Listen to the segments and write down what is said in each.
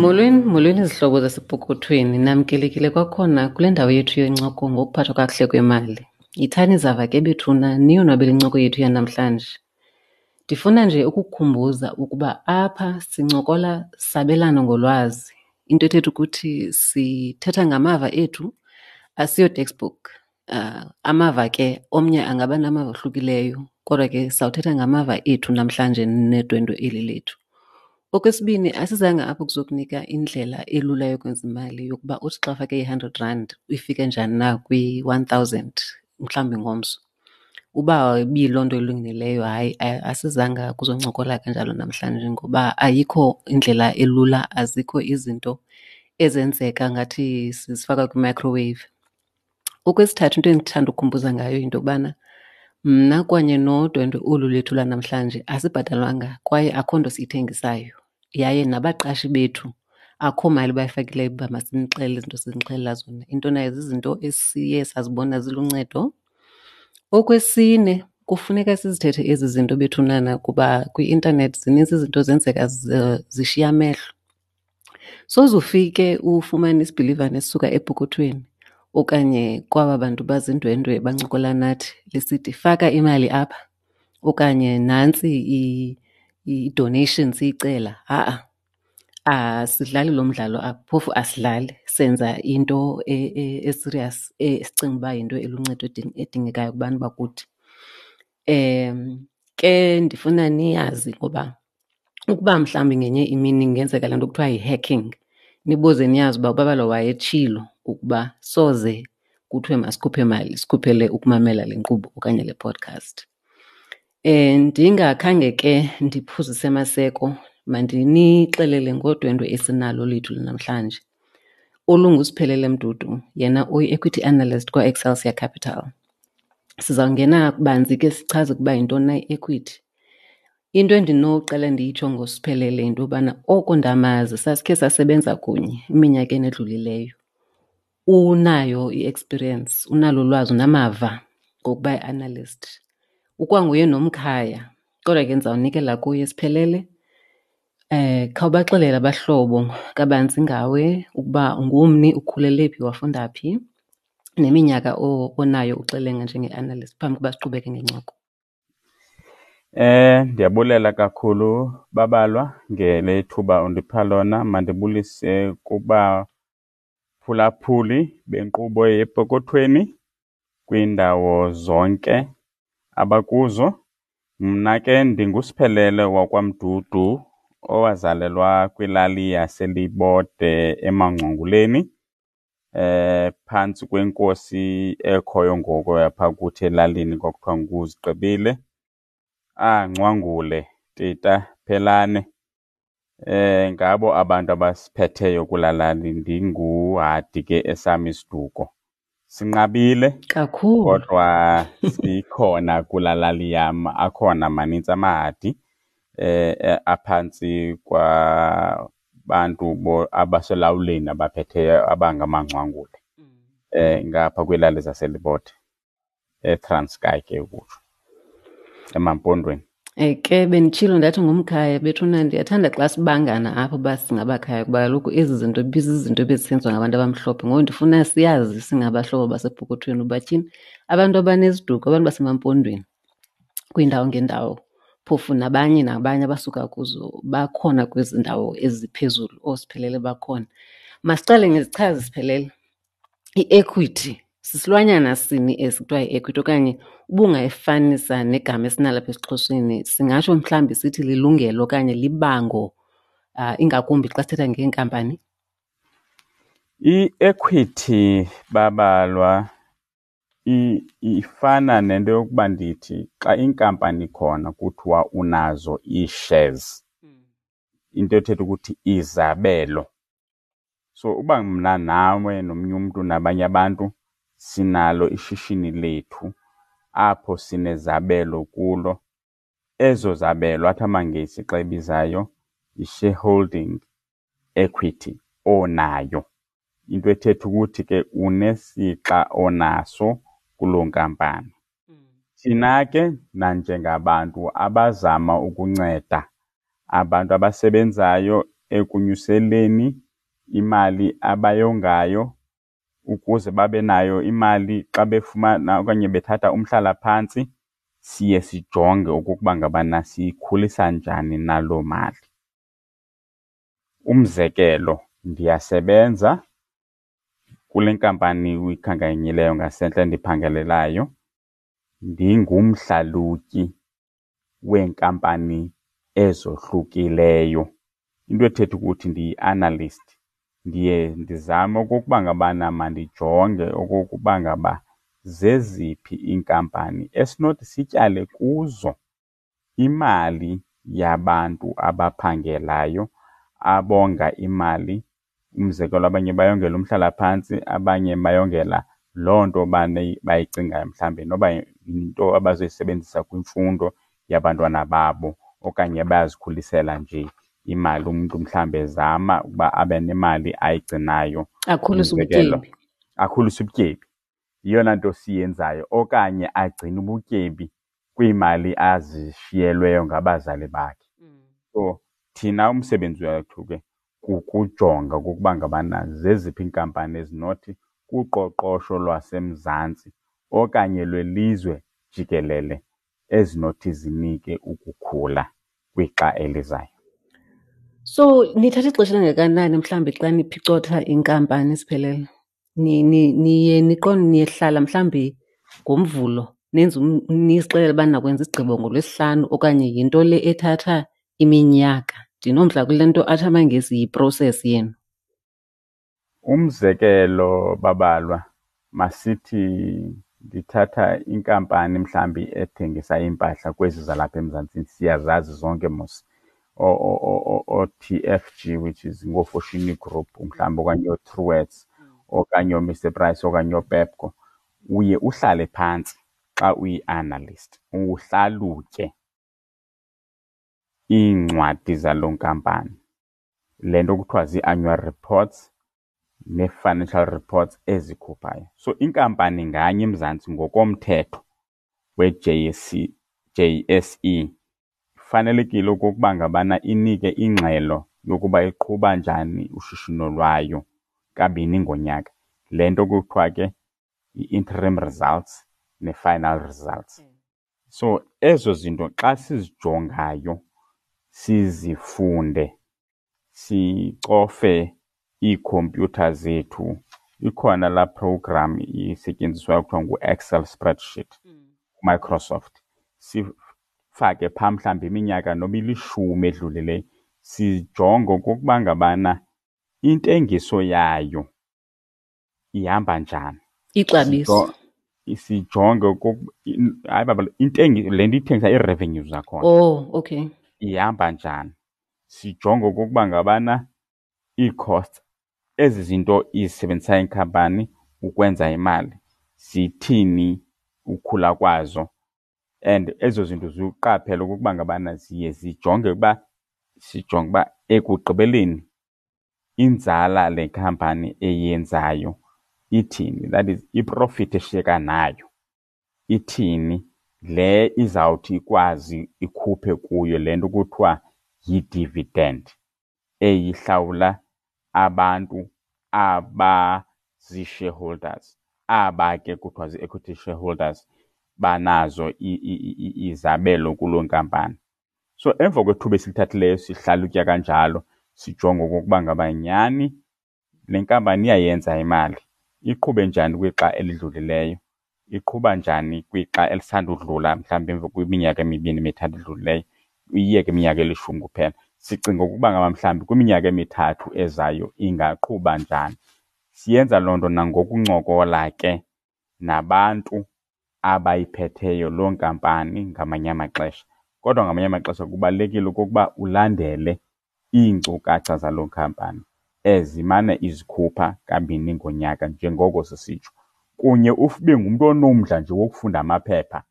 Molweni, molweni izihlobo zasepokothweni. Namkelekile kwakhona kule ndawo yethu yencoko ngokuphathwa kakuhle kwemali. Yithani zava ke bethuna niyonwabele incoko yethu yanamhlanje. Ndifuna nje ukukukhumbuza ukuba apha sincokola sabelana ngolwazi. Into ethetha ukuthi sithetha ngamava ethu, asiyo textbook. Amava ke omnye angaba namava ohlukileyo kodwa ke sawuthetha ngamava ethu namhlanje nedwendwe eli lethu. Okwesibini, asizanga apha ukuzokunika indlela elula yokwenza imali yokuba uthi xa ufake i-hundred rand ifike njani na kwi-one thousand mhlawumbi ngomso. Uba ibiyiloo nto ilungileyo, hayi asizanga kuzoncokola kanjalo namhlanje ngoba ayikho indlela elula, azikho izinto ezenzeka ngathi sizifaka kwi-microwave. Okwesithathu, into endithanda ukukhumbuza ngayo yinto yokubana mna kanye nodwendwe olu lethu lwanamhlanje asibhatalwanga kwaye akho nto siyithengisayo. Yaye nabaqashi bethu akho mali bayifakileyo uba masinixelele izinto sinixelela zona. Into nayo zizinto esiye sazibona ziluncedo. Okwesine, kufuneka sizithethe ezi zinto bethunana kuba kwi-intanethi zinintsi izinto zenzeka zishiya amehlo. Soze ufike ufumane isibhilivane esisuka epokothweni okanye kwaba bantu bazindwendwe bancokola nathi lisithi faka imali apha okanye nantsi i-donation siyicela. Ha-a, asidlali lo mdlalo apha, phofu asidlali. Senza into esiriyasi esicinga uba yinto eluncedo edingekayo kubantu bakuthi. Ke ndifuna niyazi ngoba ukuba mhlawumbi ngenye imini ingenzeka le nto kuthiwa yi-hacking, nibuze niyazi uba uBabalwa wayetshilo ukuba soze kuthiwe masikhuphe mali, sikhuphele ukumamela le nkqubo okanye le podcast. Ndingakhange ke ndiphuzise maseko, mandinixelele ngodwendwe esinalo lethu lanamhlanje olunguSiphelele Mdudu, yena uyi-equity analyst kwaExcelsior Capital. Sizawungena banzi ke sichaze ukuba yintoni na i-equity. Into endinoqala ndiyitsho ngoSiphelele yinto yobana oko ndamazi sasikhe sasebenza kunye eminyakeni edlulileyo. Unayo i-experience, unalo ulwazi, unamava ngokuba yi-analyst. Ukwanguye nomkhaya kodwa ke ndizawunikela kuye. Siphelele, khawubaxelele abahlobo kabanzi ngawe ukuba ungumni, ukhulele phi, wafunda phi neminyaka onayo uxelenga njenge-analyst phambi koba siqhubeke ngencoko. Ndiyabulela kakhulu Babalwa ngele thuba undipha lona. Mandibulise kubaphulaphuli benkqubo yePokothweni kwiindawo zonke abakuzo. Mna ke ndinguSiphelele wakwaMdudu owazalelwa kwilali yaseLibode eMangcwenguleni, phantsi kwenkosi ekhoyo ngoku yapha kuthi elalini kwakuthiwa nguZigqibile. Ngcwangule, Tita, Phelane, ngabo abantu abasiphetheyo kulaa lali. Ndinguhadi ke esam isiduko. Sinqabile kakhulu, kodwa sikhona kulaa lali yam. Akhona manintsi amahadi aphantsi kwabantu abaselawuleni abaphetheyo abangamangcwangule ngapha kwiilali zaseLibode, eTranskei ke ukutsho, emaMpondweni. Ke benditshilo ndathi ngumkhaya bethuna, ndiyathanda xa sibangana apho uba singabakhaya kuba kaloku ezi zinto ibizizinto ebezisenziwa ngabantu abamhlophe. Ngoku ndifuna siyazi singabahlobo basepokothweni uba tyhini abantu abaneziduko, abantu basemaMpondweni kwiindawo ngeendawo, phofu nabanye nabanye abasuka kuzo bakhona kwezi ndawo eziphezulu, ooSiphelele bakhona. Masiqale ngezichazi, Siphelele. I-equity sisilwanyana sini esi kuthiwa yi-equity okanye ubungayifanisa negama esinalo apha esiXhoseni, singatsho mhlawumbi sithi lilungelo okanye libango, ingakumbi xa sithetha ngeenkampani? I-equity Babalwa ifana nento yokuba ndithi xa inkampani ikhona kuthiwa unazo ii-shares, into ethetha ukuthi izabelo. So uba mna nawe nomnye umntu nabanye abantu sinalo ishishini lethu apho sinezabelo kulo, ezo zabelo athi amaNgesi xa ebizayo yi-shareholding equity onayo. Into ethetha ukuthi ke unesixa onaso kuloo nkampani. Thina ke nanjengabantu abazama ukunceda abantu abasebenzayo ekunyuseleni imali abayongayo ukuze babe nayo imali xa befumana okanye bethatha umhlalaphantsi. Siye sijonge okokuba ngabana siyikhulisa njani na loo mali. Umzekelo, ndiyasebenza kule nkampani uyikhankanyileyo ngasentla endiphangelelayo, ndingumhlalutyi weenkampani ezohlukileyo. Into ethetha ukuthi ndiyi-analyst. Ndiye ndizame okokuba ngabana mandijonge okokuba ngaba zeziphi iinkampani esinothi sityale kuzo imali yabantu abaphangelayo abonga imali. Umzekelo, abanye bayongela umhlalaphantsi, abanye bayongela loo nto bayicingayo mhlawumbi noba yinto abazoyisebenzisa kwimfundo yabantwana babo okanye bayazikhulisela nje imali. Umntu mhlawumbi ezama ukuba abe nemali ayigcinayo, akhulise ubutyebi. Akhulise ubutyebi. Yiyona nto siyenzayo, okanye agcine ubutyebi kwiimali azishiyelweyo ngabazali bakhe. So thina umsebenzi wethu ke kukujonga okokuba ngabana zeziphi iinkampani ezinothi kuqoqosho lwaseMzantsi okanye lwelizwe jikelele ezinothi zinike ukukhula kwixa elizayo. So nithatha ixesha elingakanani mhlawumbi xa niphicotha inkampani siphelele? Niye niqonde niyehlala mhlawumbi ngoMvulo nenze nizixelele uba nakwenza isigqibo ngoLwesihlanu okanye yinto le ethatha iminyaka? Ndinomdla kule nto athi amaNgesi yi-process yenu. Umzekelo, Babalwa, masithi ndithatha inkampani mhlawumbi ethengisa iimpahla kwezi zalapha eMzantsi, siyazazi zonke mos, oo-T_F_G, which is ngooFoschini Group mhlawumbi, okanye ooTruworths okanye ooMr Price okanye ooPepco. Uye uhlale phantsi xa uyi-analyst uhlalutye iincwadi zaloo nkampani, le nto kuthiwa zii-annual reports nee-financial reports ezikhuphayo. So inkampani nganye eMzantsi ngokomthetho we-J_S_C, J_S_E ifanelekile okokuba ngabana inike ingxelo yokuba iqhuba njani ushishino lwayo kabini ngonyaka. Le nto kuthiwa ke yi-interim results ne-final results. So ezo zinto xa sizijongayo sizifunde, sicofe iikhompyutha zethu, ikhona laa program isetyenziswayo kuthiwa ngu-Excel spreadsheet, Microsoft, sifake phaa mhlawumbi iminyaka noba ilishumi edlulileyo, sijonge okokuba ngabana intengiso yayo ihamba njani. Ixabiso. Sijonge hayi baba, le nto ithengisa, ii-revenues zakhona. Oh, okay. Ihamba njani. Sijonge okokuba ngabana ii-costs, ezi zinto izisebenzisayo inkampani ukwenza imali, zithini ukhula kwazo. And ezo zinto ziwuqaphele okokuba ngabana ziye zijonge uba, sijonge uba ekugqibeleni inzala le khampani eyenzayo ithini, that is iprofit eshiyeka nayo ithini, le izawuthi ikwazi ikhuphe kuyo le nto kuthiwa yi-dividend eyihlawula abantu abazii-shareholders. Aba ke kuthiwa zii-equity shareholders banazo izabelo kuloo nkampani. So emva kwethuba esilithathileyo sihlalutya kanjalo, sijonge okokuba ngaba nyhani le nkampani iyayenza imali, iqhube njani kwixa elidlulileyo, iqhuba njani kwixa elisandudlula, mhlawumbi emva kwiminyaka emibini emithathu edlulileyo, uyiyeke iminyaka elishumi kuphela. Sicinga ukuba ngaba mhlawumbi kwiminyaka emithathu ezayo ingaqhuba njani. Siyenza loo nto nangokuncokola ke nabantu abayiphetheyo loo nkampani ngamanye amaxesha. Kodwa ngamanye amaxesha kubalulekile okokuba ulandele iinkcukacha zaloo nkampani ezimane izikhupha kabini ngonyaka njengoko sisitsho. Kunye ube ngumntu onomdla nje wokufunda amaphepha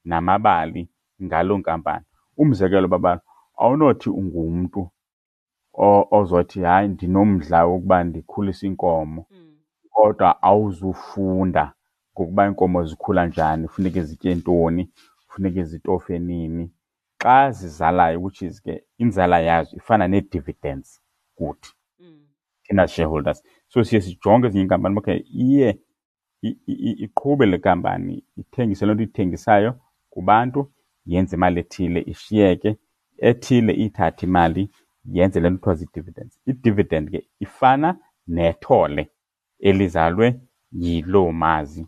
namabali ngaloo nkampani. Umzekelo, baba, awunothi ungumntu ozothi hayi ndinomdla wokuba ndikhulise iinkomo, kodwa awuzufunda ngokuba iinkomo zikhula njani, funeke zitye ntoni, funeke zitofe nini. Xa zizalayo, which is ke inzala yazo ifana nee-dividends kuthi thina shareholders. So siye sijonge ezinye iinkampani, okay, iye iqhube le kampani, ithengise loo nto ithengisayo kubantu, yenze imali ethile, ishiyeke ethile, ithathe imali yenze le nto kuthiwa zii-dividends. I-dividend ke ifana nethole elizalwe yiloo mazi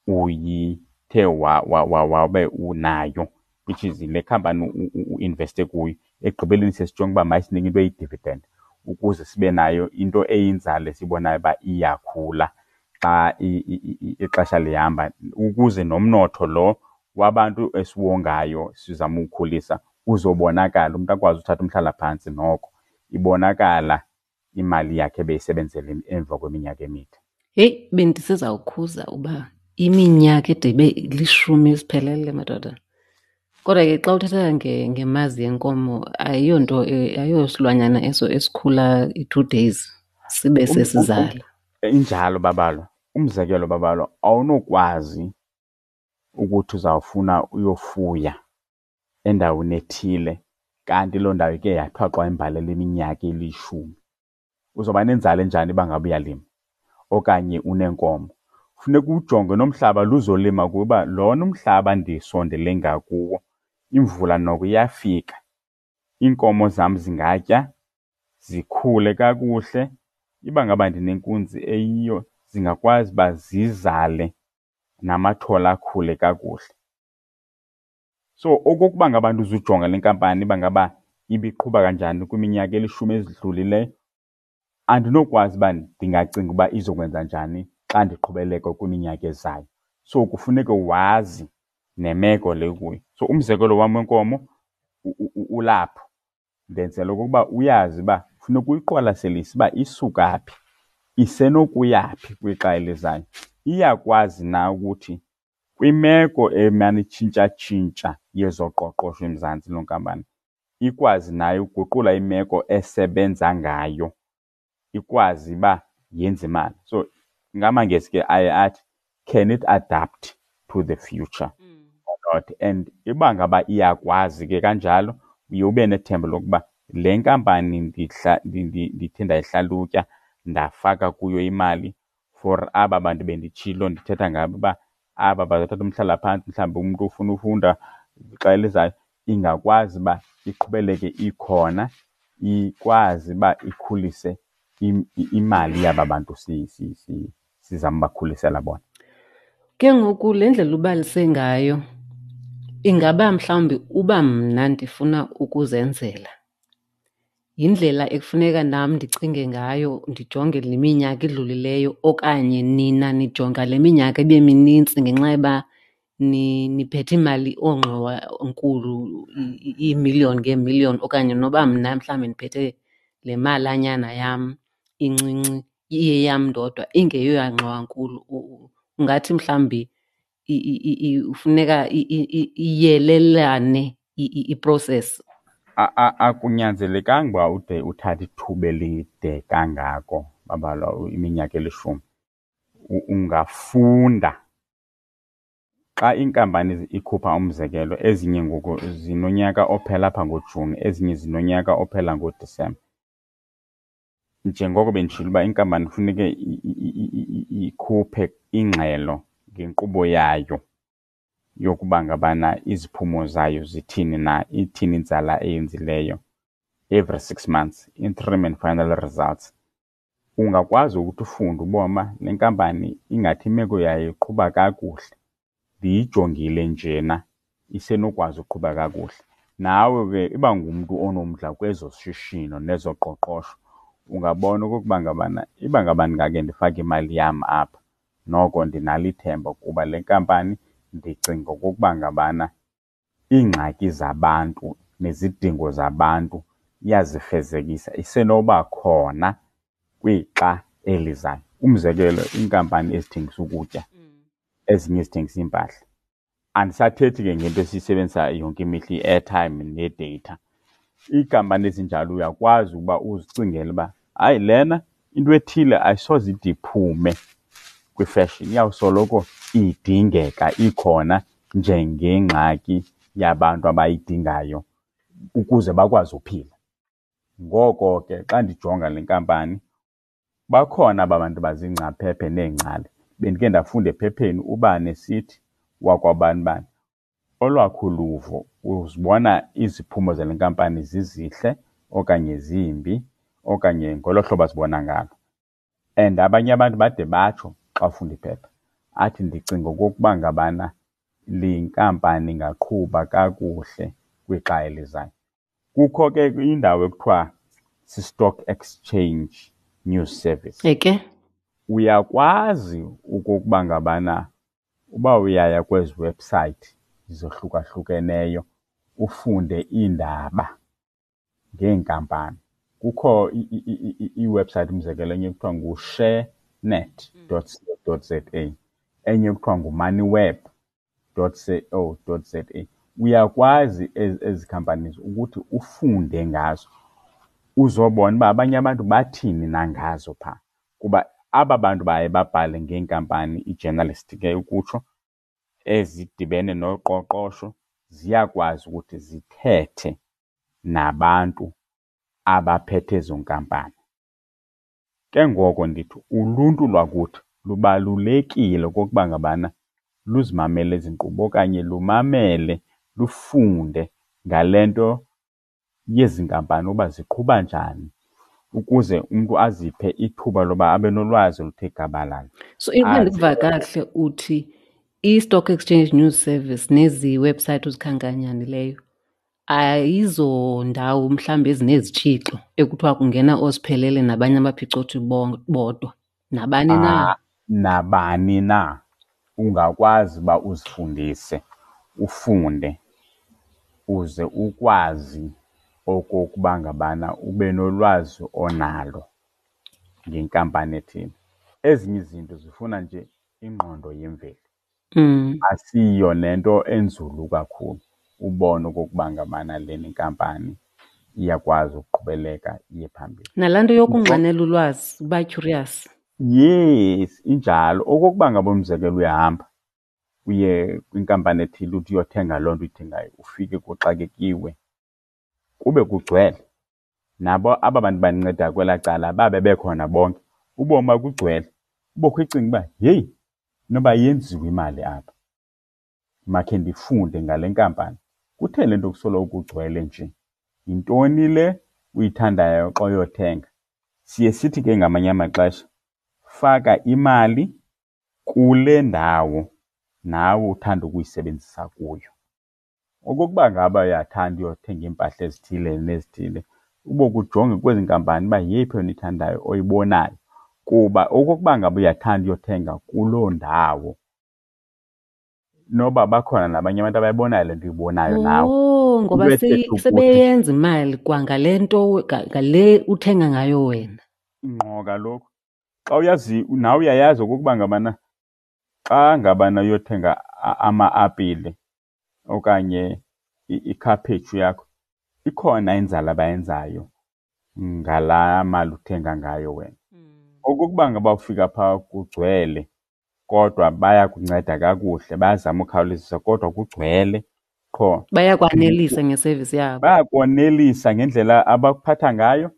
uyithe wabe unayo, which is le khampani uinveste kuyo. Ekugqibeleni siye sijonge uba mayisinike into eyi-dividend ukuze sibe nayo into eyinzala esiyibonayo uba iyakhula xa ixesha lihamba, ukuze nomnotho lo wabantu esiwongayo sizama uwukhulisa uzobonakala, umntu akwazi uthatha umhlalaphantsi noko ibonakala imali yakhe ebeyisebenzela emva kweminyaka emide. Heyi, bendisezawukhuza uba iminyaka ide ibe lishumi siphelele, madoda. Kodwa ke xa uthetha ngemazi yenkomo, ayiyonto, ayiyosilwanyana eso esikhula i-2 days sibe sesizala. Injalo Babalwa. Umzekelo Babalwa, awunokwazi ukuthi uzawufuna uyofuya endaweni ethile kanti loo ndawo ike yathwaxwa yimbalela iminyaka elishumi. Uzawuba nenzala enjani uba ngaba uyalima okanye uneenkomo? Funeka uwujonge nomhlaba lo uzolima kuwo uba lona umhlaba ndisondele ngakuwo imvula noko iyafika, iinkomo zam zingatya zikhule kakuhle. Iba ngaba ndinenkunzi eyiyo zingakwazi uba zizale namathole akhule kakuhle. So okokuba ngaba uzujonga le nkampani uba ngaba ibiqhuba kanjani kwiminyaka elishumi ezidlulileyo, andinokwazi uba ndingacinga uba izokwenza njani xa ndiqhubeleka kwiminyaka ezayo. So kufuneke wazi nemeko le ukuyo. So umzekelo wam wenkomo ulapho, ndenzela okokuba uyazi uba funeka uyiqwalaselise uba isuka phi, isenokuya phi kwixa elizayo. Iyakwazi na ukuthi kwimeko emane itshintshatshintsha yezoqoqosho eMzantsi loo nkampani ikwazi nayo ukuguqula imeko esebenza ngayo, ikwazi uba yenze imali. So ngamaNgesi ke aye athi, can it adapt to the future or not? And uba ngaba iyakwazi ke kanjalo, uye ube nethemba lokuba le nkampani ndithe ndayihlalutya ndafaka kuyo imali for aba bantu benditshilo ndithetha ngabo uba aba bazawuthatha umhlalaphantsi, mhlawumbi umntu ufuna ufunda xa elizayo, ingakwazi uba iqhubeleke ikhona, ikwazi uba ikhulise imali yaba bantu sizama ubakhulisela bona. Ke ngoku le ndlela ubalise ngayo, ingaba mhlawumbi uba mna ndifuna ukuzenzela, yindlela ekufuneka nam ndicinge ngayo, ndijonge le minyaka idlulileyo, okanye nina nijonga le minyaka ibe minintsi ngenxa yoba niphethe imali oongxowa nkulu, iimiliyoni ngeemiliyoni, okanye noba mna mhlawumbi ndiphethe le malanyana yam incinci iyeyam ndodwa ingeyoyangxowa nkulu? Ungathi mhlawumbi funeka iyelelane i-process? Akunyanzelekanga uba ude uthathe ithuba elide kangako, Babalwa, iminyaka elishumi. Ungafunda xa iinkampani ikhupha, umzekelo, ezinye ngoku zinonyaka ophela apha ngoJuni, ezinye zinonyaka ophela ngoDisemba. Njengoko benditshilo uba inkampani kufuneke ikhuphe ingxelo ngenkqubo yayo yokuba ngabana iziphumo zayo zithini na, ithini inzala eyenzileyo every 6 months, interim and final results. Ungakwazi ukuthi ufunde ubone uba le nkampani ingathi imeko yayo iqhuba kakuhle, ndiyijongile njena isenokwazi uqhuba kakuhle. Nawe ke iba ngumntu onomdla kwezoshishino nezoqoqosho, ungabona okokuba ngabana iba ngaba ndingake ndifake imali yam apha, noko ndinalo ithemba kuba le nkampani ndicinga okokuba ngabana iingxaki zabantu nezidingo zabantu iyazifezekisa, isenoba khona kwixa elizayo. Umzekelo, iinkampani ezithengisa ukutya, ezinye ezithengisa iimpahla. Andisathethi ke ngento esiyisebenzisa yonke imihla, i-airtime ne-data. Iinkampani ezinjalo uyakwazi ukuba uzicingele uba hayi, lena into ethile ayisoze ide iphume kwi-fashion, iyawusoloko idingeka ikhona njengengxaki yabantu abayidingayo ukuze bakwazi uphila. Ngoko ke xa ndijonga le nkampani, bakhona aba bantu baziingcaphephe neengcali. Bendike ndafunda ephepheni ubani esithi wakwabani bani. Olwakho uluvo uzibona iziphumo zale nkampani zizihle okanye zimbi okanye ngolo hlobo azibona ngalo. And abanye abantu bade batsho xa ufunda iphepha, athi ndicinga okokuba ngabana le nkampani ingaqhuba kakuhle kwixa elizayo. Kukho ke indawo ekuthiwa si-Stock Exchange News Service. Eke. Uyakwazi okokuba ngabana uba uyaya kwezi website zohlukahlukeneyo ufunde iindaba ngeenkampani. Kukho iwebsite, umzekelo, enye kuthiwa ngu-sharenet.co.za, enye kuthiwa ngumoneyweb.co.za. Uyakwazi ezi companies ukuthi ufunde ngazo, uzobona uba abanye abantu bathini na ngazo phaa. Kuba aba bantu baye babhale ngeenkampani, ii-journalist ke ukutsho, ezidibene noqoqosho, ziyakwazi ukuthi zithethe nabantu abaphethe ezo nkampani. Ke ngoko ndithi uluntu lwakuthi lubalulekile okokuba ngabana luzimamele ezi nkqubo okanye lumamele, lufunde ngale nto yezi nkampani uba ziqhuba njani, ukuze umntu aziphe ithuba loba abe nolwazi oluthe gabalala. So ukuba ndikuva kakuhle uthi i-Stock Exchange News Service nezi website uzikhankanyanileyo ayizondawo mhlawumbi ezinezitshixo ekuthiwa kungena oosiphelele nabanye abaphicothi bodwa, nabani na? Ah, nabani na ungakwazi uba uzifundise, ufunde uze ukwazi okokuba ngabana ube nolwazi onalo ngenkampani ethile. Ezinye izinto zifuna nje ingqondo yemveli. Asiyo nento enzulu kakhulu ubone okokuba ngabana lena inkampani iyakwazi ukuqhubeleka iye phambili. Nalaa nto yokunxanela ulwazi, uba curious. Yes, injalo. Okokuba ngaba umzekelo uyahamba uye kwinkampani ethile uthi uyothenga loo nto uyithengayo, ufike kuxakekiwe kube kugcwele. Nabo aba bantu banceda kwelaa cala babe bekhona bonke, ubomi bakugcwele. Ubokho ucinga uba heyi, inoba yenziwe imali apha, makhe ndifunde ngale nkampani. Kutheni le nto kusoloko kugcwele nje? Yintoni le uyithandayo xa uyothenga? Siye sithi ke ngamanye amaxesha faka imali kule ndawo nawe uthanda ukuyisebenzisa kuyo. Okokuba ngaba uyathanda uyothenga iimpahla ezithile nezithile, ube kujonge kwezi nkampani uba yeyiphi yona uyithandayo oyibonayo. Kuba okokuba ngaba uyathanda uyothenga kuloo ndawo, noba bakhona nabanye abantu abayibonayo le nto uyibonayo nawe. Oh, ngoba Into ethetha ukuthi sebeyenza imali kwangale nto, ngale uthenga ngayo wena. Ngqo kaloku. Xa uyazi, nawe uyayazi okokuba ngabana xa ngabana uyothenga ama-apile okanye ikhaphetshu yakho, ikhona inzala abayenzayo ngalaa mali uthenga ngayo wena. Okokuba ngaba ufika phaa kugcwele, kodwa bayakunceda kakuhle, bayazama ukhawulezisa kodwa kugcwele qho. Bayakwanelisa ngesevisi yabo. Bayakwanelisa ngendlela abakuphatha ngayo.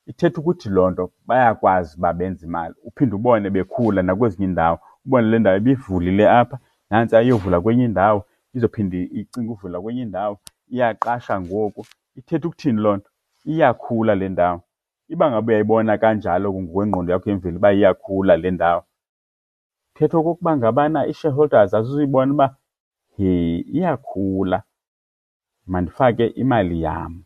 Ithetha ukuthi loo nto bayakwazi uba benze imali. Uphinde ubone bekhula nakwezinye iindawo, ubone le ndawo ibivulile apha, nantsi ayovula kwenye indawo, izophinde icinge uvula kwenye indawo, iyaqasha ngoku. Ithetha ukuthini loo nto? Iyakhula le ndawo. Iba ngaba uyayibona kanjalo ngokwengqondo yakho yemveli uba iyakhula le ndawo, thetha okokuba ngabana ii-shareholders azizuyibona uba he iyakhula, mandifake imali yam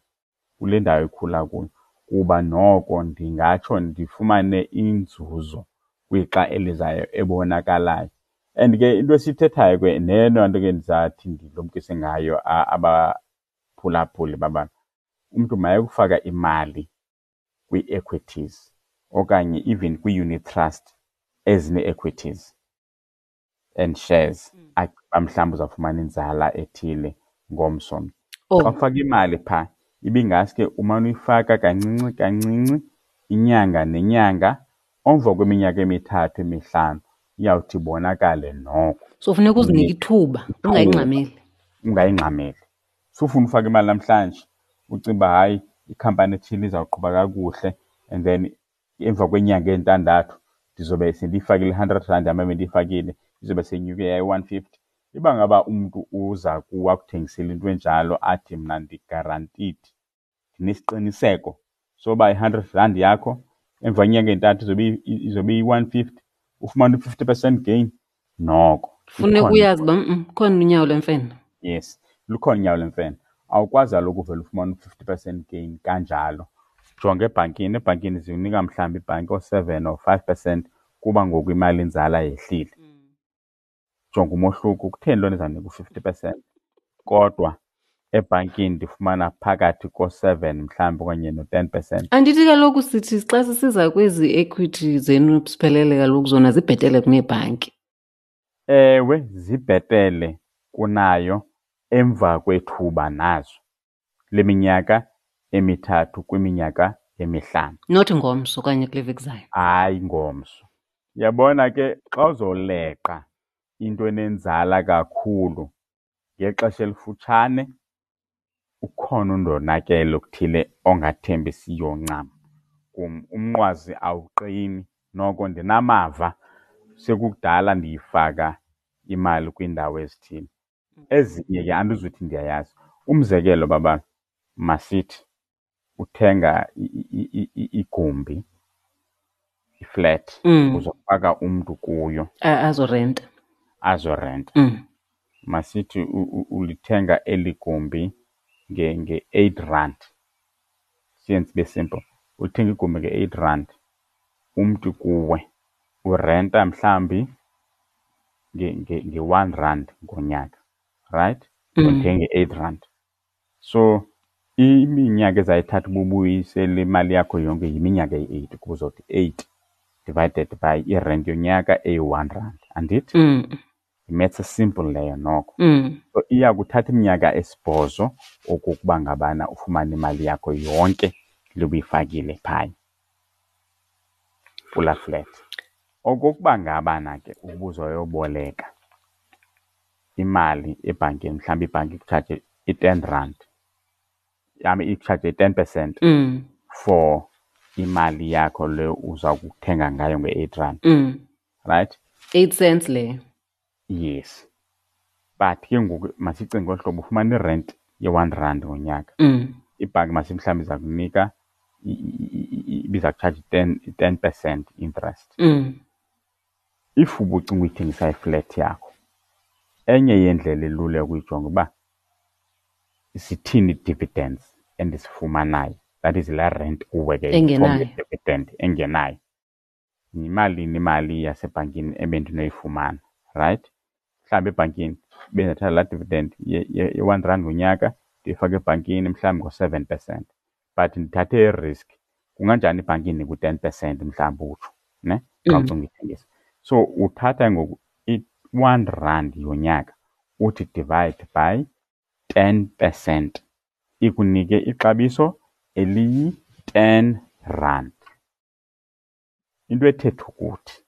kule ndawo ikhula kuyo, kuba noko ndingatsho ndifumane inzuzo kwixa elizayo ebonakalayo. And ke into esiyithethayo ke neyona nto ke ndizathi ndilumkise ngayo abaphulaphuli babantu, umntu mayekufaka imali kwii-equities okanye even kwii-unit trust ezine-equities and shares, agqiba mhlawumbi uzawufumana inzala ethile ngomso. Xa ufaka imali phaa, ibingaske umane uyifaka kancinci kancinci inyanga nenyanga, emva kweminyaka 3 5 iyawuthi ibonakale noko. So funeka uzinike ithuba, ungayingxameli. Ungayingxameli. Sufuna ufaka imali namhlanje, ucinga uba hayi Ikhampani ethile izawuqhuba kakuhle, and then emva kweenyanga ezintandathu ndizobe sendiyifakile i-100 rand yam ebendiyifakile, izobe seyinyuke yayi-150. Iba ngaba umntu uza kuwe akuthengisele into enjalo athi mna ndi-guaranteed, ndinesiqiniseko soba i-100 rand yakho emva kwenyanga entathu izobe iyi-150, ufumane u-50% gain, noko funeka uyazi uba khona unyawo lwemfene. Yes, lukhona unyawo lwemfene. Awukwazi kaloku uvele ufumane u-50% gain kanjalo. Jonga ebhankini, ebhankini zinika mhlawumbi ibhanki oo-7 or 5% kuba ngoku imali inzala yehlile. Jonga umohluko, kutheni loo nto izawunika u-50% kodwa ebhankini ndifumana phakathi ko-7 mhlawumbi okanye no-10%? Andithi kaloku sithi xa sisiza kwezi equity zenu siphelele, kaloku zona zibhetele kuneebhanki. Ewe, zibhetele kunayo emva kwethuba nazo leminyaka 3 kwiminyaka 5. Not ngomso okanye kule veki zayo. Hayi ngomso. Uyabona ke, xa uzoleqa into enenzala kakhulu ngexesha elifutshane, ukhona undonakele okuthile ongathembisiyo ncam kum. Umnqwazi awuqini. Noko ndinamava, sekukudala ndiyifaka imali kwiindawo ezithile. Ezinye ke andizuthi ndiyayazi. Umzekelo, baba, masithi uthenga igumbi, iflat, uzofaka umntu kuyo. Azorenta. Azorenta. Masithi ulithenga eli gumbi nge-8 rand. Siyenze ibe simple. Ulithenga igumbi nge-8 rand, umntu kuwe urenta mhlawumbi nge-1 rand ngonyaka, right? Ulithenga nge-8 rand. So iminyaka ezayithatha uba ubuyisele imali yakho yonke yiminyaka eyi-8, kuba uzothi 8 divided by irenti yonyaka eyi-1 rand, andithi? Yi-maths simple leyo noko. So iya kuthatha iminyaka 8 okokuba ngabana ufumane imali yakho yonke le ubuyifakile phaya kulaa flat. Okokuba ngabana ke ubuzoyoboleka imali ebhankini, mhlawumbi ibhanki ikutshaje i-10 rand, yam ikutshaje i-10% for imali yakho le uza kuthenga ngayo nge-8 rand. Right? 8 cents leyo. Yes. But ke ngoku masicinge ngolu hlobo, ufumana irent ye-1 rand ngonyaka. Ibhanki masithi mhlawumbi iza kunika, ibiza kutshaja 10% interest. If ubucinga uyithengisa iflat yakho, enye yeendlela elula yokuyijonga uba zithini ii-dividends endizifumanayo, that is laa rent kuwe ke engenayo, dividend engenayo. Yimalini imali yasebhankini ebendinoyifumana, right? Mhlawumbi ebhankini bendingathatha laa dividend ye-1 rand ngonyaka ndiyifake ebhankini mhlawumbi ngo-7%, but ndithathe i-risk. Kunganjani ibhanki indinike u-10% mhlawumbi utsho, ne? Xa ucinga uyithengisa. So uthatha ngoku i-1 rand yonyaka uthi divide by 10%, ikunike ixabiso eliyi-10 rand. Into ethetha ukuthi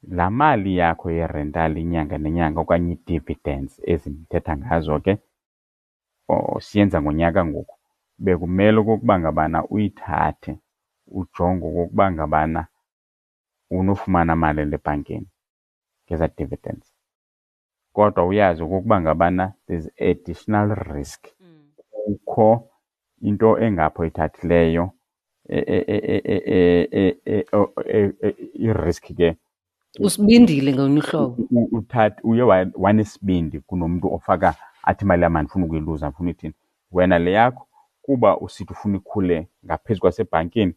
laa mali yakho yerental inyanga nenyanga okanye ii-dividends ezi ndithetha ngazo ke, siyenza ngonyaka ngoku, bekumele okokuba ngabana uyithathe ujonge okokuba ngabana unofumana mali ebhankini ngezaa dividends. Kodwa uyazi okokuba ngabana there's additional risk. Kukho into engapho oyithathileyo, i-risk ke. Usibindile ngolunye uhlobo. Uthathe uye wanesibindi kunomntu ofaka athi imali yam andifuni ukuyiluza, andifuni ithini. Wena le yakho kuba usithi ufuna ikhule ngaphezu kwasebhankini,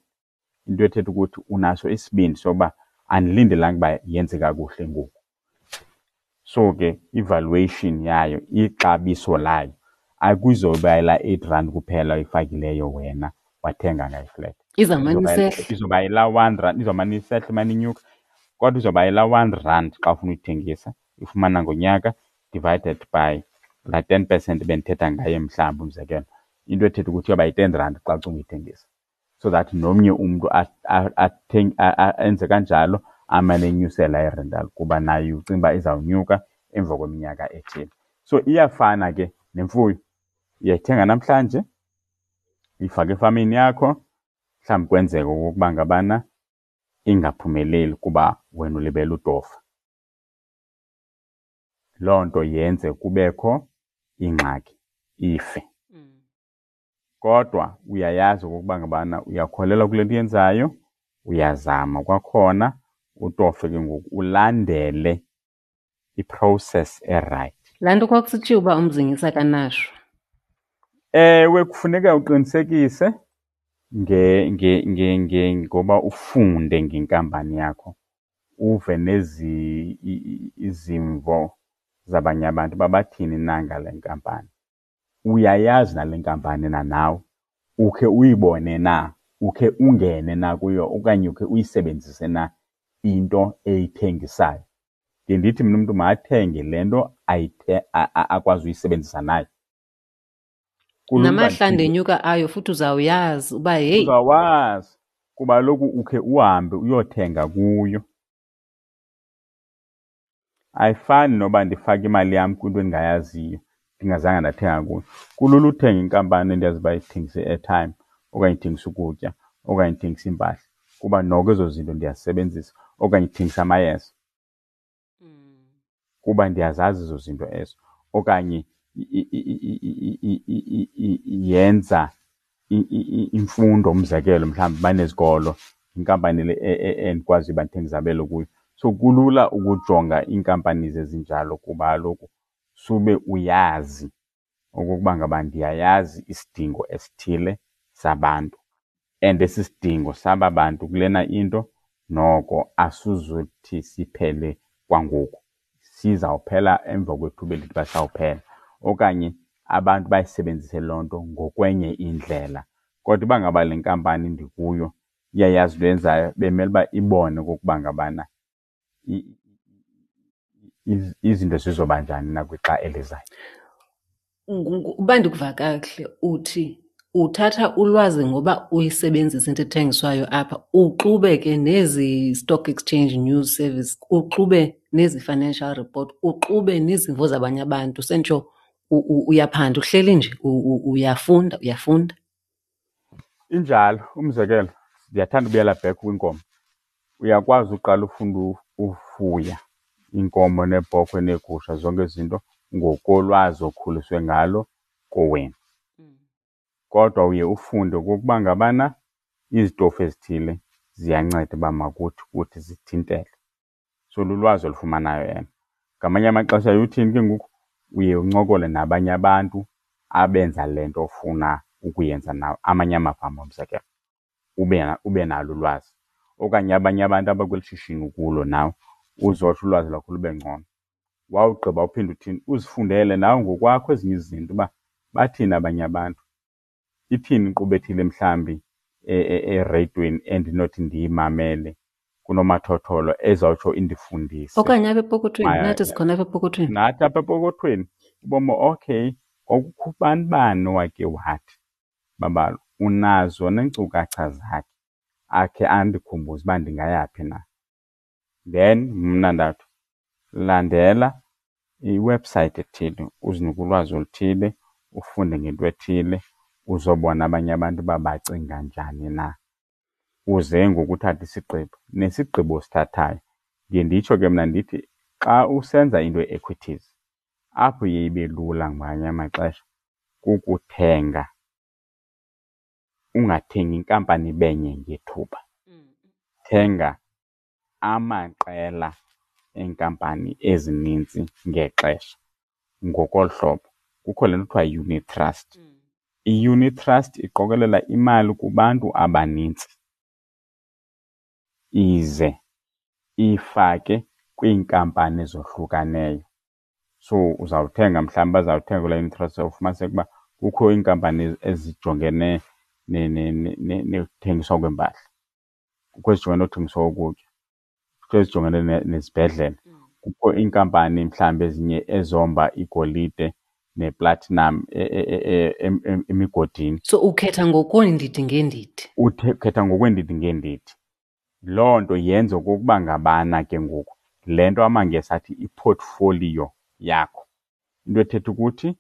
into ethetha ukuthi unaso isibindi soba andilindelanga uba yenze kakuhle ngoku. So ke i-valuation yayo, ixabiso layo, akuzoba yilaa 8 rand kuphela oyifakileyo wena wathenga ngayo iflat. Izawumane isehla. Izoba yilaa 1 rand, izawumane isehla, imane inyuka, kodwa izoba yilaa 1 rand xa ufuna uyithengisa, ifumana ngonyaka divided by laa 10% bendithetha ngayo mhlawumbi umzekelo. Into ethetha ukuthi iyoba yi-10 rand xa ucinga uyithengisa. So that nomnye umntu enze kanjalo, amane enyusela irental kuba naye ucinga uba izawunyuka emva kweminyaka ethile. So iyafana ke nemfuyo. Uyayithenga namhlanje, Uyifake efamini yakho, mhlawumbi kwenzeka okokuba ngabana ingaphumeleli kuba wena ulibele utofa. Loo nto yenze kubekho ingxaki, ife. Kodwa uyayazi okokuba ngabana uyakholelwa kule nto uyenzayo, uyazama kwakhona utofe ke ngoku ulandele i-process erayithi. Laa nto kwakusitshiwo uba umzingisi akanashwa. Ewe, kufuneka uqinisekise ngoba ufunde ngenkampani yakho, uve nezi izimvo zabanye abantu uba bathini na ngale nkampani. Uyayazi nale nkampani na nawe? Ukhe uyibone na? Ukhe ungene na kuyo okanye ukhe uyisebenzise na into eyithengisayo? Ndiye ndithi mna umntu makathenge le nto akwazi uyisebenzisa naye. Namahla ndenyuka ayo futhi uzawuyazi uba heyi. Uzawazi kuba kaloku ukhe uhambe uyothenga kuyo. Ayifani noba ndifake imali yam kwinto endingayaziyo ndingazange ndathenga kuyo. Kulula uthenga inkampani endiyazi uba ithengisa i-airtime okanye ithengisa ukutya okanye ithengisa iimpahla kuba noko ezo zinto ndiyazisebenzisa, okanye ithengisa amayeza kuba ndiyazazi ezo zinto ezo, okanye yenza imfundo, umzekelo mhlawumbi banezikolo, inkampani le endikwaziyo uba ndithenge izabelo kuyo. So kulula ukujonga iinkampani ezinjalo kuba kaloku sube uyazi okokuba ngaba ndiyayazi isidingo esithile sabantu and esi sidingo saba bantu kulena into noko asizuthi siphele kwangoku, sizawuphela emva kwethuba elithi uba sawuphela, okanye abantu bayisebenzise loo nto ngokwenye indlela. Kodwa uba ngaba le nkampani ndikuyo iyayazi into eyenzayo, bemele uba ibone okokuba ngabana izinto zizoba njani na kwixa elizayo. Uba ndikuva kakuhle uthi uthatha ulwazi ngoba uyisebenzisa into ethengiswayo apha, uxube ke nezi Stock Exchange News Service, uxube nezi financial report, uxube nezimvo zabanye abantu, sentsho uyaphanda, uhleli nje uyafunda, uyafunda. Injalo. Umzekelo, ndiyathanda ubuyela back kwinkomo. Uyakwazi uqala ufunda ufuya iinkomo neebhokhwe neegusha, zonke ezi zinto ngokolwazi okhuliswe ngalo kowenu. Kodwa uye ufunde okokuba ngabana izitofu ezithile ziyanceda uba makuthi kuthi zithintele. So lulwazi olufumanayo elo. Ngamanye amaxesha uthini ke ngoku, uye uncokole nabanye abantu abenza le nto ofuna ukuyenza nawe, amanye amafama umzekelo, ube nalo ulwazi. Okanye abanye abantu abakweli shishini ukulo nawe, uzotsho ulwazi lwakho lube ngcono. Wawugqiba uphinde uthini, uzifundele nawe ngokwakho ezinye izinto uba bathini abanye abantu, ithini inkqubo ethile mhlawumbi ereyidweni endinothi ndiyimamele kunomathotholo ezawutsho indifundise. Okanye apha epokothweni, nathi sikhona apha epokothweni. Nathi apha epokothweni, ubomi okay, kwakukho ubani bani owake wathi, Babalo, unazo neenkcukacha zakhe, akhe andikhumbuze uba ndingayaphi na. Then mna ndathi, landela iwebhusayithi ethile, uzinike ulwazi oluthile, ufunde ngento ethile, uzobona abanye abantu uba bacinga njani na. Uze ngoku uthathe isigqibo. Nesigqibo osithathayo, ndiye nditsho ke mna ndithi xa usenza into ye-equities, apho iye ibe lula ngamanye amaxesha kukuthenga, ungathengi inkampani ibe nye ngethuba. Thenga amaqela eenkampani ezinintsi ngexesha. Ngokolu hlobo, kukho le nto kuthiwa yi-unit trust. I-unit trust iqokelela imali kubantu abanintsi ize iyifake kwiinkampani ezohlukaneyo. So uzawuthenga mhlawumbi bazawuthenga kulaa unit trust, ufumaniseke uba kukho iinkampani ezijongene nokuthengiswa kweempahla, kukho ezijongene nokuthengiswa kokutya, kukho ezijongene nezibhedlele, kukho iinkampani mhlawumbi ezinye ezomba igolide neplatinum emigodini. So ukhetha ngokweendidi ngeendidi? Ukhetha ngokweendidi ngeendidi. Loo nto yenza okokuba ngabana ke ngoku le nto amaNgesi athi i-portfolio yakho, into ethetha ukuthi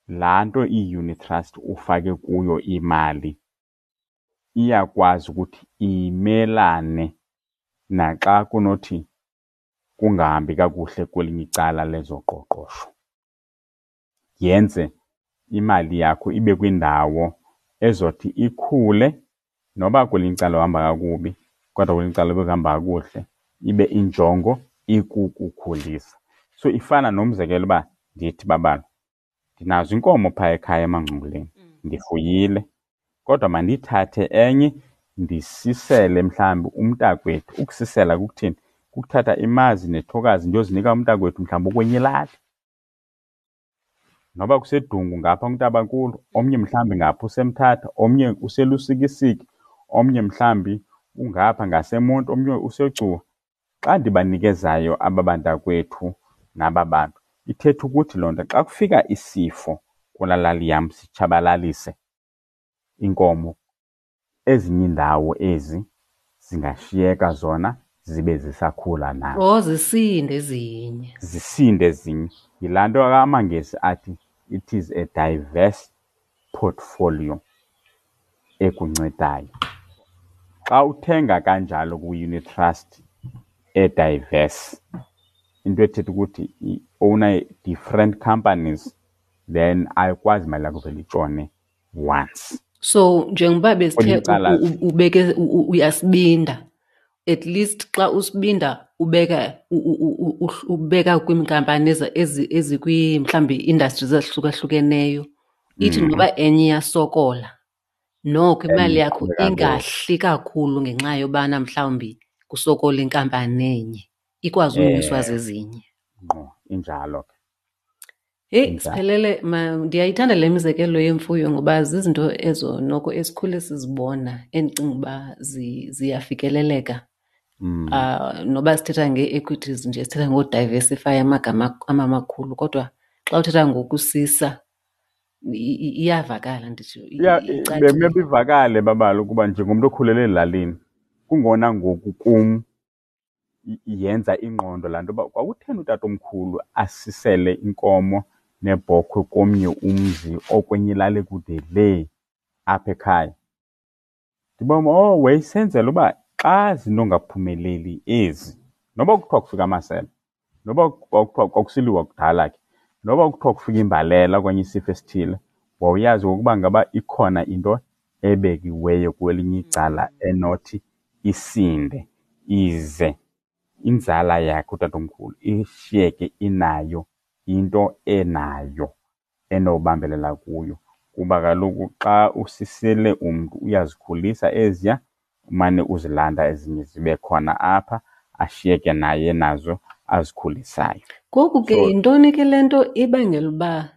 Laa nto iyi-unit trust ufake kuyo imali iyakwazi ukuthi imelane naxa kunothi kungahambi kakuhle kwelinye icala lezoqoqosho. Yenze imali yakho ibe kwindawo ezothi ikhule noba kwelinye icala uhamba kakubi, kodwa kwelinye icala bekuhamba kakuhle, ibe injongo ikukukhulisa. So ifana nomzekelo uba ndithi babala, ndinazo inkomo phaa ekhaya emangcunguleni, ndifuyile, kodwa mandiyithathe enye ndisisele mhlawumbi umntakwethu. Ukusisela kukuthini? Kukuthatha imazi nethokazi ndiyozinika umntakwethu mhlawumbi okwenye ilali. Noba kuseDungu ngapha kuNtabankulu, omnye mhlawumbi ngapha useMthatha, omnye useLusikisiki, omnye mhlawumbi ungapha ngaseMonti, omnye useGcuwa. Xa ndibanikezayo aba bantakwethu naba bantu, ithetha ukuthi loo nto xa kufika isifo kulaa lali yam sitshabalalise inkomo, ezinye iindawo ezi zingashiyeka zona zibe zisakhula nazo. Oh, zisinde ezinye. Zisinde ezinye. Yilaa nto amaNgesi athi it is a diverse portfolio ekuncedayo. Xa uthenga kanjalo kwi-unit trust e-diverse, into ethetha ukuthi i-owna different companies, then ayikwazi imali yakho vele itshone once. So njengoba besithe ubeke uyasibinda, at least xa usibinda ubeka ubeka kwiinkampani ezikwi mhlawumbi industries ezahlukahlukeneyo, ithi noba enye iyasokola noko imali yakho ingahli kakhulu ngenxa yobana mhlawumbi kusokola inkampani enye, ikwazi unyuswa zezinye. Ngqo, injalo ke. Heyi, Siphelele, ndiyayithanda le mizekelo yemfuyo ngoba zizinto ezo noko esikhule sizibona endicinga uba ziyafikeleleka. Noba sithetha ngee-equities nje, sithetha ngodiversify amagama amakhulu, kodwa xa uthetha ngokusisa iyavakala, nditsho. Bemele ivakale babala ukuba njengomntu okhulele ezilalini, kungona ngoku kum yenza ingqondo laa nto uba kwakutheni utatomkhulu asisele inkomo nebhokhwe komnye umzi okwenye ilali ekude lee apha ekhaya. Ndibona, oh, wayesenzela uba xa zinongaphumeleli ezi, noba kuthiwa kufika amasele, noba kuthiwa kwakusiliwa kudala ke, noba kuthiwa kufika imbalela okanye isifo esithile, wawuyazi ngokuba ngaba ikhona into ebekiweyo kwelinye icala enothi isinde ize inzala yakhe utatomkhulu ishiyeke inayo into enayo enobambelela kuyo. Kuba kaloku xa usisele umntu uyazikhulisa eziya, umane uzilanda ezinye zibe khona apha, ashiyeke naye nazo azikhulisayo. Ngoku ke yintoni ke le nto ibangela uba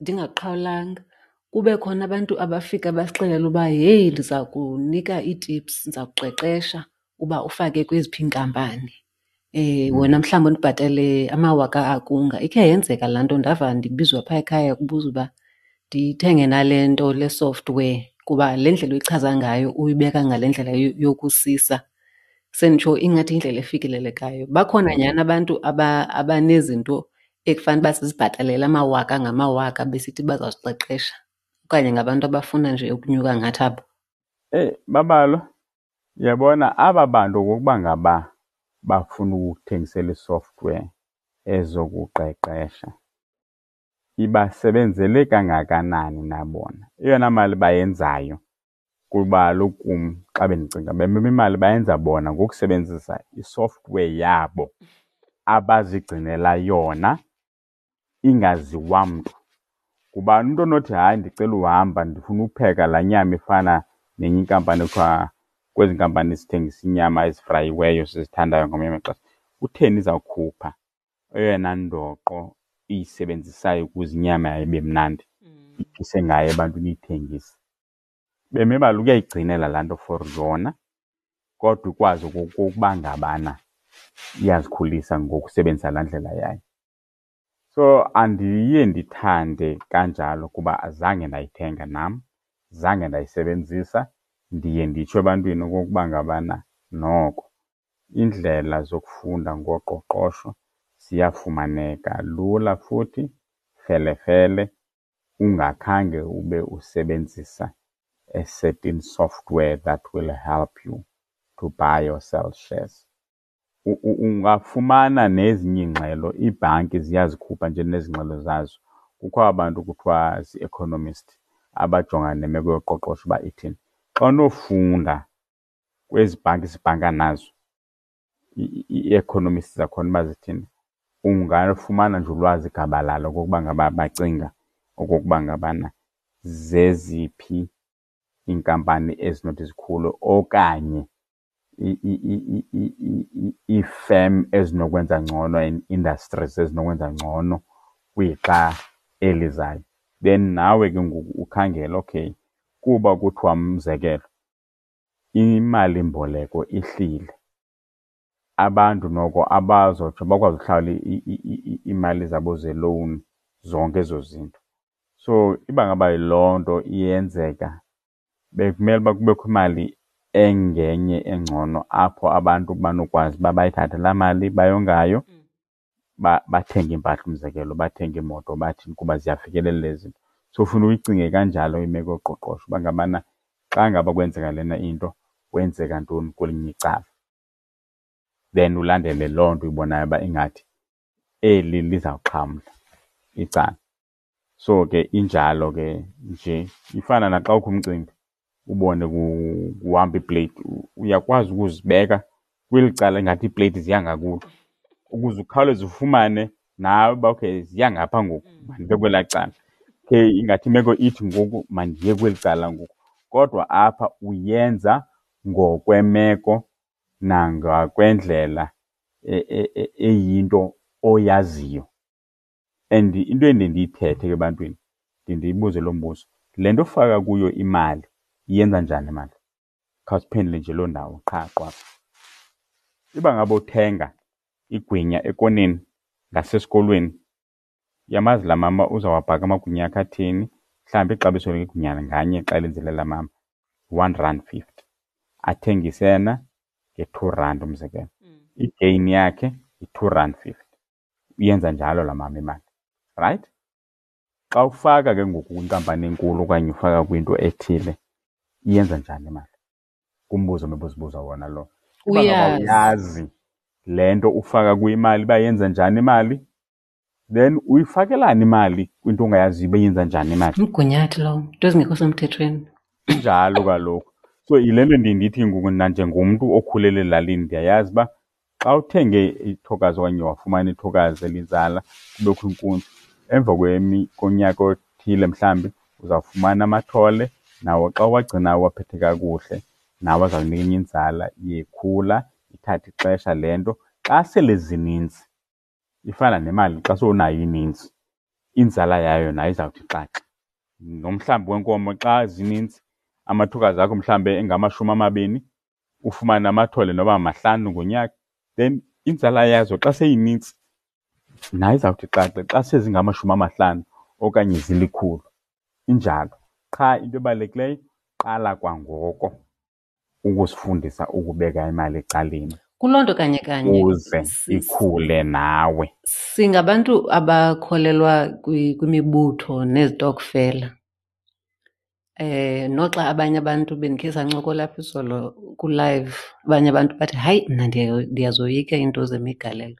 ndingaqhawulanga kube khona abantu abafika basixelele uba heyi, ndiza kunika ii-tips, ndiza kuqeqesha uba ufake kweziphi iinkampani. Wena mhlawumbi undibhatale amawaka akunga. Ikhe yenzeka laa nto, ndava ndibizwa phaa ekhaya kubuzwa uba ndithenge nale nto, le software, kuba le ndlela uyichaza ngayo uyibeka ngale ndlela yokusisa. Senditsho ingathi yindlela efikelelekayo. Bakhona nyhani abantu abanezinto ekufanele uba sizibhatalele amawaka ngamawaka besithi bazawusiqeqesha, okanye ngabantu abafuna nje ukunyuka ngathi abo? Eyi, Babalo, uyabona aba bantu okokuba ngaba bafuna ukukuthengisela i-software ezokuqeqesha, ibasebenzele kangakanani na bona? Eyona mali bayenzayo kuba kaloku kum xa bendicinga bememe imali bayenza bona ngokusebenzisa i-software yabo abazigcinela yona ingaziwa mntu. Ngubani umntu onothi hayi ndicela uhamba ndifuna upheka laa nyama ifana nenye inkampani ekuthiwa kwezi nkampani zithengisa inyama ezifrayiweyo sizithandayo ngamanye amaxesha, kutheni izawukhupha eyona ndoqo iyisebenzisayo ukuze inyama yayo ibe mnandi, iphise ngayo ebantwini iyithengise? Beme balo ukuyayigcinela laa nto for yona, kodwa ikwazi okokuba ngabana iyazikhulisa ngokusebenzisa laa ndlela yayo. So andiye ndithande kanjalo kuba azange ndayithenga nam, zange ndayisebenzisa. Ndiye nditsho ebantwini okokuba ngabana noko iindlela zokufunda ngoqoqosho ziyafumaneka lula futhi felefele. ungakhange ube usebenzisa a certain software that will help you to buy or sell shares. Ungafumana nezinye iingxelo, iibhanki ziyazikhupha nje nezi ngxelo zazo. Kukho abantu kuthiwa zii-economist abajongana nemeko yoqoqosho uba ithini. Xa unofunda kwezi bhanki sibhanka nazo, ii-economists zakhona uba zithini, ungafumana nje ulwazi gabalala okokuba ngaba bacinga okokuba ngabana zeziphi iinkampani ezinothi zikhule okanye iifem ezinokwenza ngcono and industries ezinokwenza ngcono kwixa elizayo. Then nawe ke ngoku ukhangele, okay, kuba kuthiwa umzekelo imalimboleko ihlile, abantu noko abazotsho bakwazi uhlawula iimali zabo zelowuni, zonke ezo zinto. So iba ngaba yiloo nto iyenzeka, bekumele uba kubekho imali engenye engcono apho abantu banokwazi uba bayithathe laa mali bayongayo, bathenge iimpahla, umzekelo, bathenge iimoto, bathini, kuba ziyafikelela ezi zinto. So funa uyicinge kanjalo imeko yoqoqosho uba ngabana xa ngaba kwenzeka lena into, kwenzeka ntoni kwelinye icala. Then ulandele loo nto uyibonayo uba ingathi eli lizawuxhamla icala. So ke injalo ke nje, ifana naxa kukho umcimbi ubone kuhamba iipleyiti, uyakwazi ukuzibeka kweli cala ingathi iipleyiti ziya ngakulo ukuze ukhawuleze ufumane nawe uba okay ziya ngapha ngoku, mandibe kwelaa cala. Okay, ingathi imeko ithi ngoku mandiye kweli cala ngoku. Kodwa apha uyenza ngokwemeko nangakwendlela eyinto oyaziyo. And into endiye ndiyithethe ke ebantwini, ndiye ndiyibuze lo mbuzo, le nto ufaka kuyo imali iyenza njani imali? Khawusiphendule nje loo ndawo qha qwaba. Iba ngaba uthenga igwinya ekoneni ngasesikolweni, uyamazi laa mama uzawabhaka amagwinya akhe athini, mhlawumbi ixabiso legwinya nganye xa elenzile laa mama R1.50, athengise yena nge-R2 umzekelo. I-gain yakhe yi-R2.50. Uyenza njalo laa mama imali, right? Xa ufaka ke ngoku kwinkampani enkulu okanye ufaka kwinto ethile, iyenza njani imali? Ngumbuzo omebuzibuza wona lo. Uba ngaba uyazi le nto ufaka kuyo imali uba yenza njani imali, then uyifakelani imali kwinto ongayaziyo uba yenza njani imali? Umgunyathi lowo, into ezingekho semthethweni. Injalo kaloku. So yile nto ndiye ndithi ngoku nanjengomntu okhulele elalini, ndiyayazi uba xa uthenge ithokazi okanye wafumana ithokazi elinzala kubekho inkunzi, emva konyaka othile mhlawumbi uzawufumana amathole, nawo xa uwagcinayo uwaphethe kakuhle, nawo azawunika enye inzala, iye ikhula, ithathe ixesha le nto. Xa sele zininzi, ifana nemali xa sowunayo ininzi, inzala yayo nayo izawuthi xaxa. Nomhlambi wenkomo xa zininzi, amathokazi akho mhlawumbi engamashumi amabini, ufumane amathole noba mahlanu ngonyaka, then inzala yazo xa seyinintsi nayo izawuthi xaxe xa sezingamashumi amahlanu okanye zilikhulu. Injalo. Qha into ebalulekileyo, qala kwangoko ukuzifundisa ukubeka imali ecaleni. Kuloo nto kanye kanye ukuze ikhule nawe. Singabantu abakholelwa kwimibutho nezitokfela. Noxa abanye abantu bendikhe sancokola apha izolo ku-live, abanye abantu bathi hayi mna ndiyazoyika iinto zemigalelo.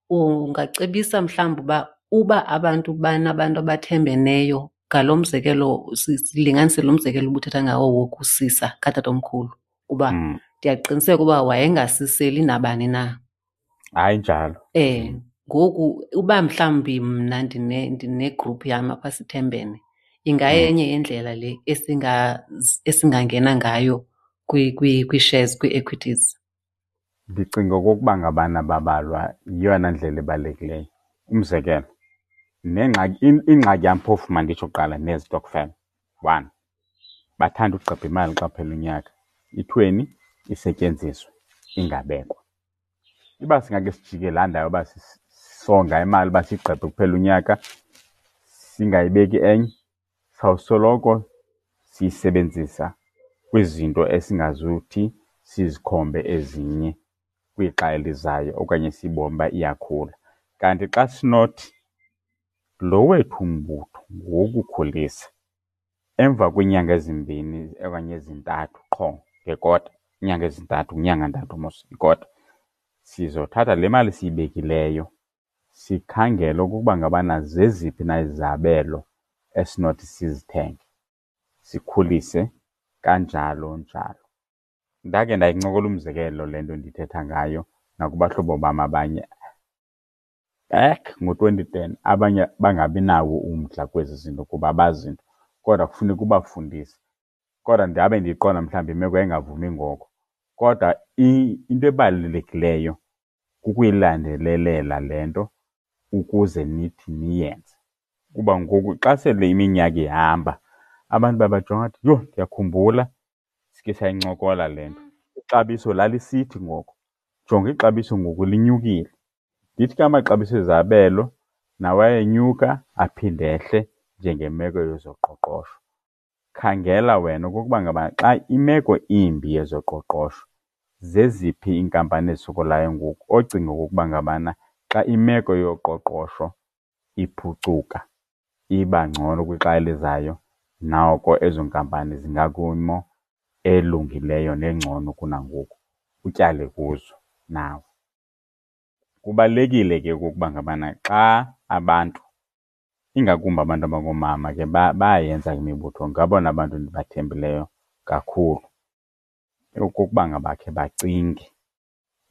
Ungacebisa mhlawumbi uba abantu banabantu abathembeneyo ngalo mzekelo, silinganise lo mzekelo ubuthetha ngawo wokusisa katatomkhulu, kuba ndiyaqiniseka uba wayengasiseli nabani na. Hayi njalo. Ngoku uba mhlawumbi mna ndine-group yam apha sithembene, ingayenye yendlela le esingangena ngayo kwii-shares, kwii-equities. Ndicinga okokuba ngabana babalwa yeyona ndlela ebalulekileyo. Umzekelo, nengxaki, ingxaki yam phofu manditsho kuqala nezitokfela. One, bathanda ugqebha imali xa kuphela unyaka. Ithweni isetyenziswe ingabekwa. Iba singake sijike laa ndawo uba songa imali uba siyigqebhe kuphela unyaka, singayibeki enye, sawusoloko siyisebenzisa kwizinto esingazuthi sizikhombe ezinye kwixa elizayo okanye siyibone uba iyakhula. Kanti xa sinothi lo wethu umbutho ngowokukhulisa. Emva kweenyanga ezimbini okanye ezintathu qho ngekota, iinyanga ezintathu, kwinyanga ntathu mos ikota, sizothatha le mali siyibekileyo sikhangele okokuba ngabana zeziphi na izabelo esinothi sizithenge, sikhulise kanjalo njalo. Ndake ndayincokola umzekelo le nto ndithetha ngayo nakubahlobo bam abanye back ngo-2010, abanye bangabi nawo umdla kwezi zinto kuba abazi nto, kodwa kufuneka ubafundise. Kodwa ndabe ndiyiqonda mhlawumbi imeko yayingavumi ngoko. Kodwa into ebalulekileyo kukuyilandelelela le nto ukuze nithi niyenze. Kuba ngoku xa sele iminyaka ihamba abantu babajonga bathi, yho, ndiyakhumbula sikhe sayincokola le nto. Ixabiso lalisithi ngoko, jonga ixabiso ngoku linyukile. Ndithi ke amaxabiso ezabelo nawo ayenyuka aphinde ehle njengemeko yezoqoqosho. Khangela wena okokuba ngaba xa imeko imbi yezoqoqosho, zeziphi iinkampani ezisokolayo ngoku ocinga okokuba ngabana xa imeko yoqoqosho iphucuka iba ngcono kwixa elizayo, noko ezo nkampani zingakwimo elungileyo nengcono kunangoku, utyale kuzo nawe. Kubalulekile ke okokuba ngabana xa abantu, ingakumbi abantu abangoomama ke bayayenza imibutho, ngabona bantu ndibathembileyo kakhulu, okokuba ngaba khe bacinge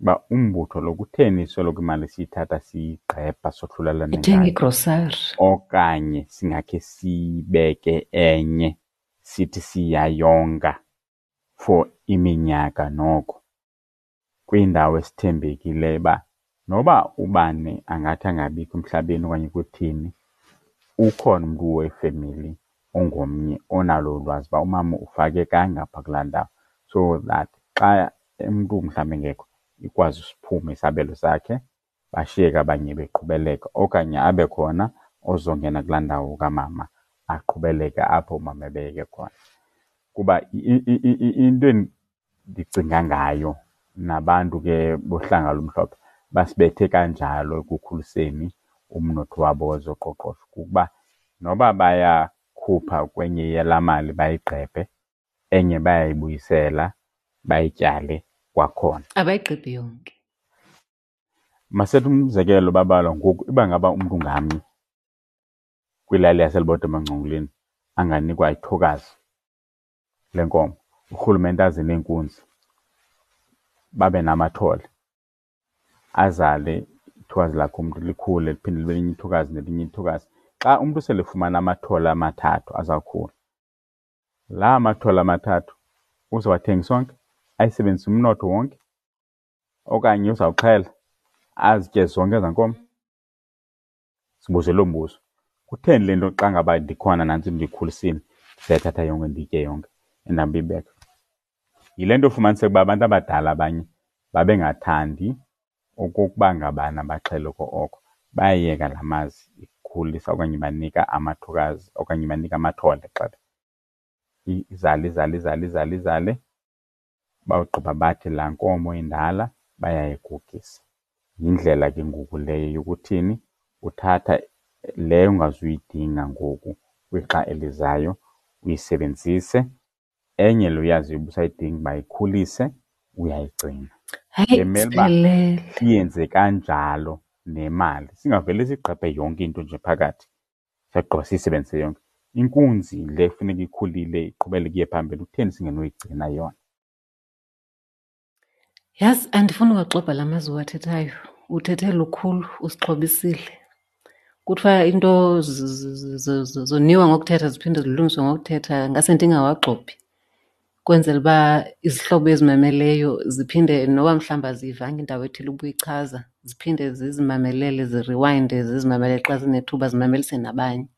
uba umbutho lo kutheni soloko imali siyithatha siyigqebha sohlulelane Ithenga ngayo? igrosari. Okanye singakhe siyibeke enye sithi siyayonga for iminyaka noko kwindawo esithembekileyo uba noba ubani angathi angabikho emhlabeni okanye kuthini, ukhona umntu wefemeli ongomnye onalo ulwazi uba umama ufake kangapha kulaa ndawo, so that xa umntu mhlawumbi engekho ikwazi siphume isabelo sakhe, bashiyeke abanye beqhubeleka, okanye abe khona ozongena kulaa ndawo kamama aqhubeleke apho umama ebeyeke khona. Kuba into endicinga ngayo nabantu ke bohlanga olumhlophe basibethe kanjalo ekukhuliseni umnotho wabo wezoqoqosho kukuba noba bayakhupha kwenye yalaa mali bayigqebhe, enye bayayibuyisela bayityale kwakhona. Abayigqebhi yonke. Masethe umzekelo babalwa ngoku, uba ngaba umntu ngamnye kwilali yaseLibode emaNgcongoleni anganikwa ithokazi lenkomo, urhulumente aze neenkunzi, babe namathole, azale ithokazi lakhe umntu likhule liphinde libe linye ithokazi nelinye ithokazi. Xa umntu sele efumana amathole amathathu azawukhula, laa mathole amathathu uzowathengisa onke, ayisebenzise umnotho wonke, okanye uzawuxhela azitye zonke ezaa nkomo? Sibuze loo mbuzo. Kutheni le nto xa ngaba ndikhona nantsi ndiyikhulisile ndizayithatha yonke ndiyitye yonke endihambe iyibeka? Yile nto ufumaniseka uba abantu abadala abanye babengathandi okokuba ngabana baxhele oko, bayayeka laa mazi ikhulisa okanye banika amathokazi okanye banika amathole gxebe. Izale, izale, izale, izale, izale, bawugqiba bathi laa nkomo indala bayayigugisa. Yindlela ke ngoku leyo yokuthini, uthatha leyo ungazuyidinga ngoku kwixa elizayo uyisebenzise, enye le uyaziyo uba usayidinga uba ikhulise uyayigcina. Hayi, Bemele uba siphelele. siyenze kanjalo nemali, singavele sigqebhe yonke into nje phakathi sagqiba siyisebenzise yonke. Inkunzi le kufuneka ikhulile iqhubeleke iye phambili, kutheni singenoyigcina yona? Yazi andifuni uwaxobha la mazwi uwathethayo, uthethe lukhulu, usixhobisile. Kuthiwa into zoniwa ngokuthetha ziphinde zilungiswe ngokuthetha, ngase ndingawagxobhi kwenzela uba izihlobo ezimameleyo ziphinde noba mhlawumbi aziyivanga indawo ethile ubuyichaza, ziphinde zizimamelele, ziriwayinde, zizimamelele xa zinethuba, zimamelise nabanye.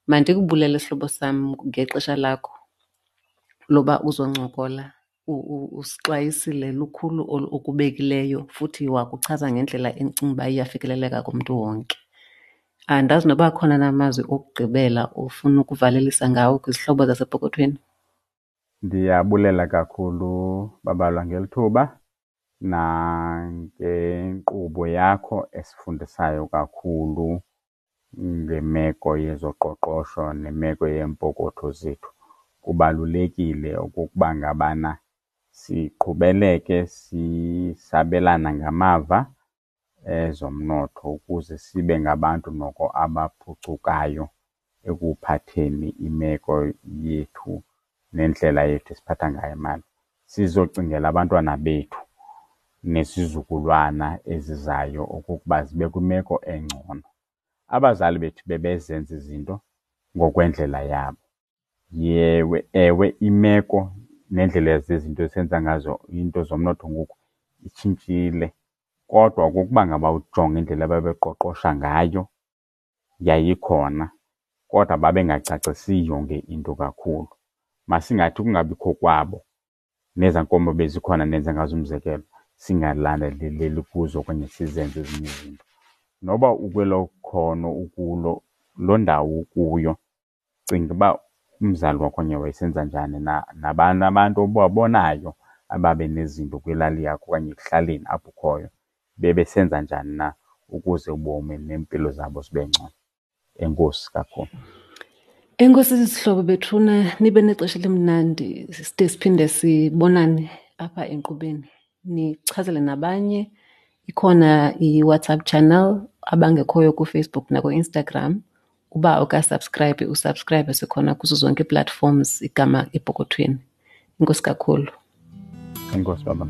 Mandikubulele sihlobo sam ngexesha lakho loba uzoncokola. Usixwayisile lukhulu okubekileyo futhi wakuchaza ngendlela endicinga uba iyafikeleleka kumntu wonke. Andazi noba akhona na amazwi okugqibela ofuna ukuvalelisa ngawo kwizihlobo zasepokothweni. Ndiyabulela kakhulu Babalwa ngeli thuba nangenkqubo yakho esifundisayo kakhulu ngemeko yezoqoqosho nemeko yeempokotho zethu. Kubalulekile okokuba ngabana siqhubeleke sisabelana ngamava ezomnotho ukuze sibe ngabantu noko abaphucukayo ekuphatheni imeko yethu nendlela yethu esiphatha ngayo imali. Sizocingela abantwana bethu nesizukulwana ezizayo okokuba zibe kwimeko engcono. Abazali bethu bebezenza izinto ngokwendlela yabo. Yewe, ewe imeko nendlela zezinto esenza ngazo iinto zomnotho ngoku itshintshile, kodwa okokuba ngaba ujonga indlela ababeqoqosha ngayo yayikhona kodwa babengacacisi yonke into kakhulu. Masingathi ukungabikho kwabo nezaa nkomo bezikhona ndenze ngazo umzekelo singalandeleleli kuzo okanye sizenze ezinye izinto. Noba ukwelo khono ukulo, loo ndawo ukuyo, cinga uba umzali wakho okanye wayesenza njani na, nabani abantu obabonayo ababe nezinto kwilali yakho okanye ekuhlaleni apho ukhoyo bebesenza njani na ukuze ubomi neempilo zabo zibe ngcono. Enkosi kakhulu. Enkosi zihlobo bethuna, nibe nexesha elimnandi side siphinde sibonane apha enkqubeni. Nichazele nabanye, ikhona iWhatsApp channel abangekhoyo kuFacebook nakuInstagram. Uba awukasubscribe, usubscribe, sikhona kuzo zonke ii-platforms igama Epokothweni. Enkosi kakhulu. Enkosi baba.